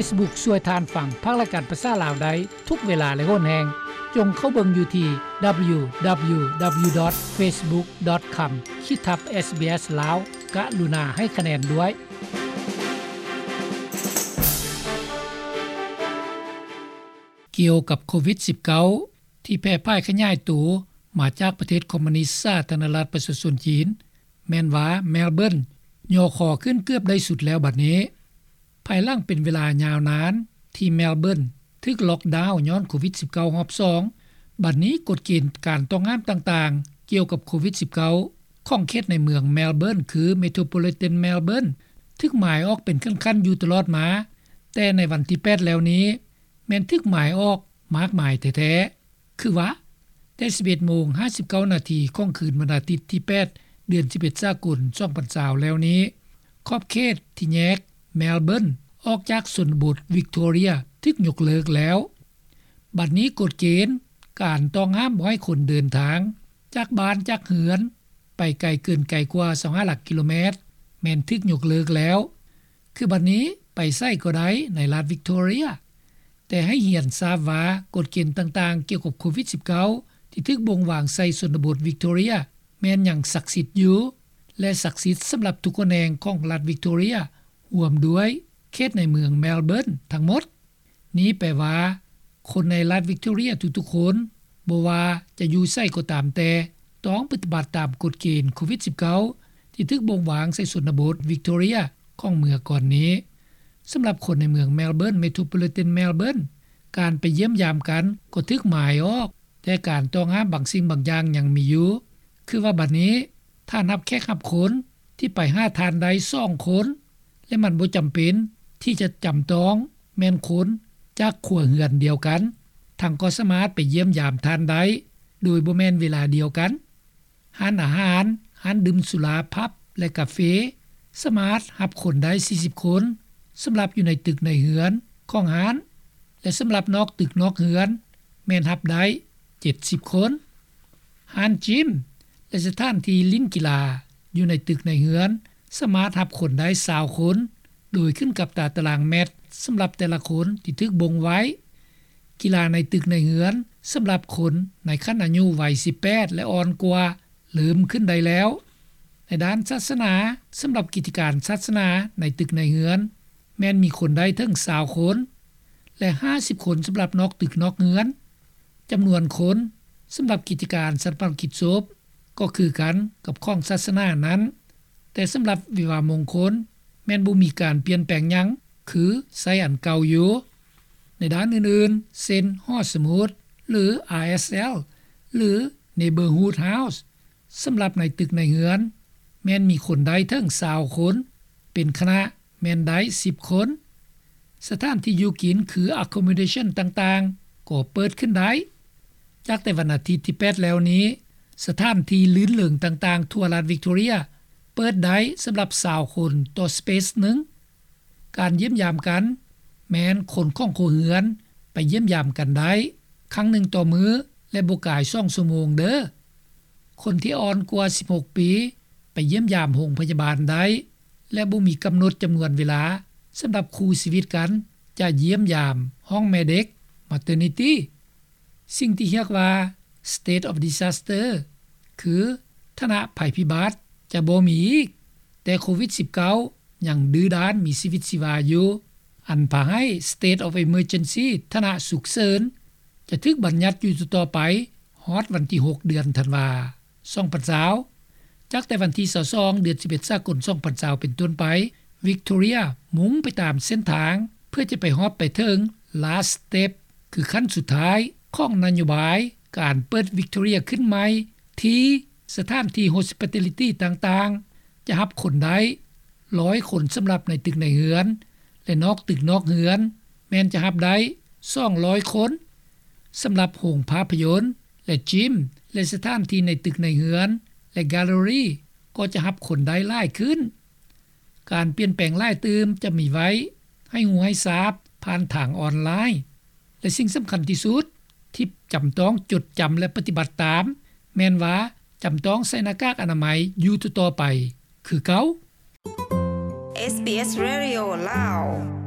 Facebook ຊ່ວຍທ່ານຟັງພາກລາຍການພາສາລາວໄດ້ທຸກເວລາ ແລະ ໂຫນແຮງ. ຈົ່ງເຂົ້າເບິ່ງຢູ່ທີ່ www.facebook.com ຂີດທັບ SBS ລາວ. ກະລຸນາໃຫ້ຄະແນນດ້ວຍ. ກ່ຽວກັບໂຄວິດ-ສິບເກົ້າ ທີ່ແຜ່ພາຍຂະຫຍາຍໂຕມາຈາກປະເທດຄອມມູນິດສາທາລະນະລັດປະຊາຊົນຈີນ, ແມ່ນວ່າແມລເບີນຍໍຄໍຂຶ້ນເກືອບໄດ້ສຸດແລ້ວບັດນີ້. ພາຍຫຼັງເປັນເວລາຍາວນານທີ່ແມລເບີນຖືກລັອກດາວຍ້ອນໂຄວິດ-ສິບເກົ້າ ຮອບສອງ, ບັດນີ້ກົດເກນການຕ້ອງຫ້າມຕ່າງໆກ່ຽວກັບໂຄວິດ-ສິບເກົ້າ ຂອງເຂດໃນເມືອງແມລເບີນ ຄື Metropolitan Melbourne ຖືກໝາຍອອກເປັນຂັ້ນໆຢູ່ຕະຫຼອດມາ, ແຕ່ໃນວັນທີແປດແລ້ວນີ້ ແມ່ນຖືກໝາຍອອກມາກມາຍແທ້ໆ. ຄືວ່າ ແຕ່ສິບເອັດໂມງຫ້າສິບເກົ້ານາທີຂອງຄືນວັນອາທິດທີແປດ ເດືອນສິບເອັດ ສາກົນ ສອງພັນຊາວແລ້ວນີ້, ຂອບເຂດທີ່ແຍກແມລເບີນອອກຈາກຊົນນະບົດວິກໂທເຣຍຖືກຍົກເລີກແລ້ວ. ບັດນີ້ກົດເກນການຕ້ອງຫ້າມບໍ່ໃຫ້ຄົນເດີນທາງຈາກບ້ານຈາກເຮືອນໄປໄກເກີນໄກກວ່າຊາວຫ້າຫຼັກກິໂລແມັດ ແມ່ນຖືກຍົກເລີກແລ້ວ. ຄືບັດນີ້ໄປໃສກໍໄດ້ໃນລັດວິກໂທເຣຍ, ແຕ່ໃຫ້ຮຽນຊາບວ່າກົດເກນຕ່າງໆກ່ຽວກັບໂຄວິດ-ສິບເກົ້າ ທີ່ຖືກບົ່ງວາງໃສ່ຊົນນະບົດວິກໂທເຣຍ ແມ່ນຍັງສັກສິດຢູ່ ແລະ ສັກສິດສຳລັບທຸກຂະແໜງຂອງລັດວິກໂທເຣຍ, ຮວມດ້ວຍເຂດໃນເມືອງແມລເບີນທັງໝົດ. ນີ້ແປວ່າ ຄົນໃນລັດວິກໂທເຣຍທຸກໆຄົນ, ບໍ່ວ່າຈະຢູ່ໃສກໍຕາມແຕ່, ຕ້ອງປະຕິບັດຕາມກົດເກນໂຄວິດ-ສິບເກົ້າ ທີ່ຖືກບົ່ງວາງໃສ່ຊົນນະບົດວິກໂທເຣຍຂອງເມື່ອກ່ອນນີ້. ສຳລັບຄົນໃນເມືອງແມລເບີນ Metropolitan Melbourne, ການໄປຢ້ຽມຢາມກັນກໍຖືກໝາຍອອກ, ແຕ່ການຕ້ອງຫ້າມບາງສິ່ງບາງຢ່າງຍັງມີຢູ່. ຄືວ່າບັດນີ້ ຖ້ານັບແຂກຮັບຄົນທີ່ໄປຫາທ່ານໄດ້ສອງຄົນ ແລະ ມັນບໍ່ຈຳເປັນທີ່ຈະຈຳຕ້ອງແມ່ນຄົນຈາກຄົວເຮືອນດຽວກັນ, ທ່ານກໍສາມາດໄປຢ້ຽມຢາມທ່ານໄດ້ໂດຍບໍ່ແມ່ນເວລາດຽວກັນ. ຮ້ານອາຫານ, ຮ້ານດື່ມສຸລາ, ຜັບ ແລະ ກາເຟ ສາມາດຮັບຄົນໄດ້ສີ່ສິບຄົນ ສຳລັບຢູ່ໃນຕຶກໃນເຮືອນຂອງຮ້ານ ແລະ ສຳລັບນອກຕຶກນອກເຮືອນ ແມ່ນຮັບໄດ້ເຈັດສິບຄົນ. ຮ້ານຈິມ ແລະ ສະຖານທີ່ຫຼິ້ນກິລາຢູ່ໃນຕຶກໃນເຮືອນ ສາມາດຮັບຄົນໄດ້ຊາວຄົນ ໂດຍຂຶ້ນກັບຕາຕະລາງແມັດສຳລັບແຕ່ລະຄົນທີ່ຖືກບົ່ງໄວ້. ກິລາໃນຕຶກໃນເຮືອນສຳລັບຄົນໃນຂັ້ນອາຍຸໄວສິບແປດ ແລະ ອ່ອນກວ່າ ເລີ່ມຂຶ້ນໄດ້ແລ້ວ. ໃນດ້ານສາສະໜາ, ສຳລັບກິດຈະການສາສະໜາໃນຕຶກໃນເຮືອນ ແມ່ນມີຄົນໄດ້ເຖິງຊາວຄົນ ແລະ ຫ້າສິບຄົນສຳລັບນອກຕຶກນອກເຮືອນ. ຈຳນວນຄົນສຳລັບກິດຈະການຊາປະນະກິດສົບກໍຄືກັນກັບຂອງສາສະໜານັ້ນ, ແຕ່ສຳລັບວິວາມງຄົນແມ່ນບໍ່ມີການປ່ຽນແປງຫຍັງ, ຄືໃຊ້ອັນເກົ່າຢູ່. ໃນດ້ານອື່ນໆ ເຊັ່ນ ຫໍສະໝຸດ ຫຼື ອາແອສແອລ ຫຼື Neighbourhood House ສຳລັບໃນຕຶກໃນເຮືອນ ແມ່ນມີຄົນໄດ້ເຖິງຊາວຄົນ, ເປັນຄະນະແມ່ນໄດ້ສິບຄົນ. ສະຖານທີ່ຢູ່ກິນ ຄື accommodation ຕ່າງໆ ກໍເປີດຂຶ້ນໄດ້. ຈາກແຕ່ວັນອາທິດທີແປດແລ້ວນີ້, ສະຖານທີ່ລື່ນເລີງຕ່າງໆທົ່ວລັດວິກໂທເຣຍ ເປີດໄດ້ສຳລັບຊາວຄົນຕໍ່ space ໜຶ່ງ. ການຢ້ຽມຢາມກັນ ແມ່ນຄົນຂອງຄົວເຮືອນໄປຢ້ຽມຢາມກັນໄດ້ຄັ້ງໜຶ່ງຕໍ່ມື້ ແລະ ບໍ່ກາຍສອງຊົ່ວໂມງເດີ້. ຄົນທີ່ອ່ອນກວ່າສິບຫົກປີ ໄປຢ້ຽມຢາມໂຮງພະຍາບານໄດ້ ແລະ ບໍ່ມີກຳນົດຈຳນວນເວລາສຳລັບຄູ່ຊີວິດກັນຈະຢ້ຽມຢາມຫ້ອງແມ່ເດັກ maternity. ສິ່ງທີ່ຮຽກວ່າ state of disaster ຄືຖານະໄພພິບັດຈະບໍ່ມີອີກ, ແຕ່ໂຄວິດສິບເກົ້າຍັງດື້ດ້ານມີຊີວິດຊີວາຢູ່, ອັນພາໃຫ້ state of emergency ຖານະສຸກເສີນ ຈະຖືກບັນຍັດຢູ່ຕໍ່ໆໄປ ຮອດວັນທີຫົກ ເດືອນທັນວາ ສອງພັນຊາວ. ຈາກແຕ່ວັນທີຊາວສອງ ເດືອນສິບເອັດ ສາກົນ ສອງພັນຊາວ ເປັນຕົ້ນໄປ, ວິກໂທເຣຍມຸ່ງໄປຕາມເສັ້ນທາງ ເພື່ອຈະໄປຮອດໄປເຖິງ last step ຄືຂັ້ນສຸດທ້າຍຂອງນະໂຍບາຍການເປີດວິກໂທເຣຍຂຶ້ນໃໝ່ ທີ່ສະຖານທີ່ hospitality ຕ່າງໆ ຈະຮັບຄົນໄດ້ຮ້ອຍຄົນສຳລັບໃນຕຶກໃນເຮືອນ ແລະ ນອກຕຶກນອກເຮືອນ ແມ່ນຈະຮັບໄດ້ສອງຮ້ອຍຄົນ. ສຳລັບໂຮງພາພະຍົນ ແລະ gym ແລະ ສະຖານທີ່ໃນຕຶກໃນເຮືອນ ແລະ gallery ກໍຈະຮັບຄົນໄດ້ຫຼາຍຂຶ້ນ. ການປ່ຽນແປງຫຼາຍຕື່ມຈະມີໄວ້ໃຫ້ຮູ້ໃຫ້ຊາບຜ່ານທາງອອນລາຍ ແລະ ສິ່ງສຳຄັນທີ່ສຸດທີ່ຈຳຕ້ອງຈົດຈຳ ແລະ ປະຕິບັດຕາມ ແມ່ນວ່າຈຳຕ້ອງໃສ່ໜ້າກາກອະນາໄມຢູ່ຕໍ່ໆໄປຄືເກົ່າ. SBS Radio ລາວ.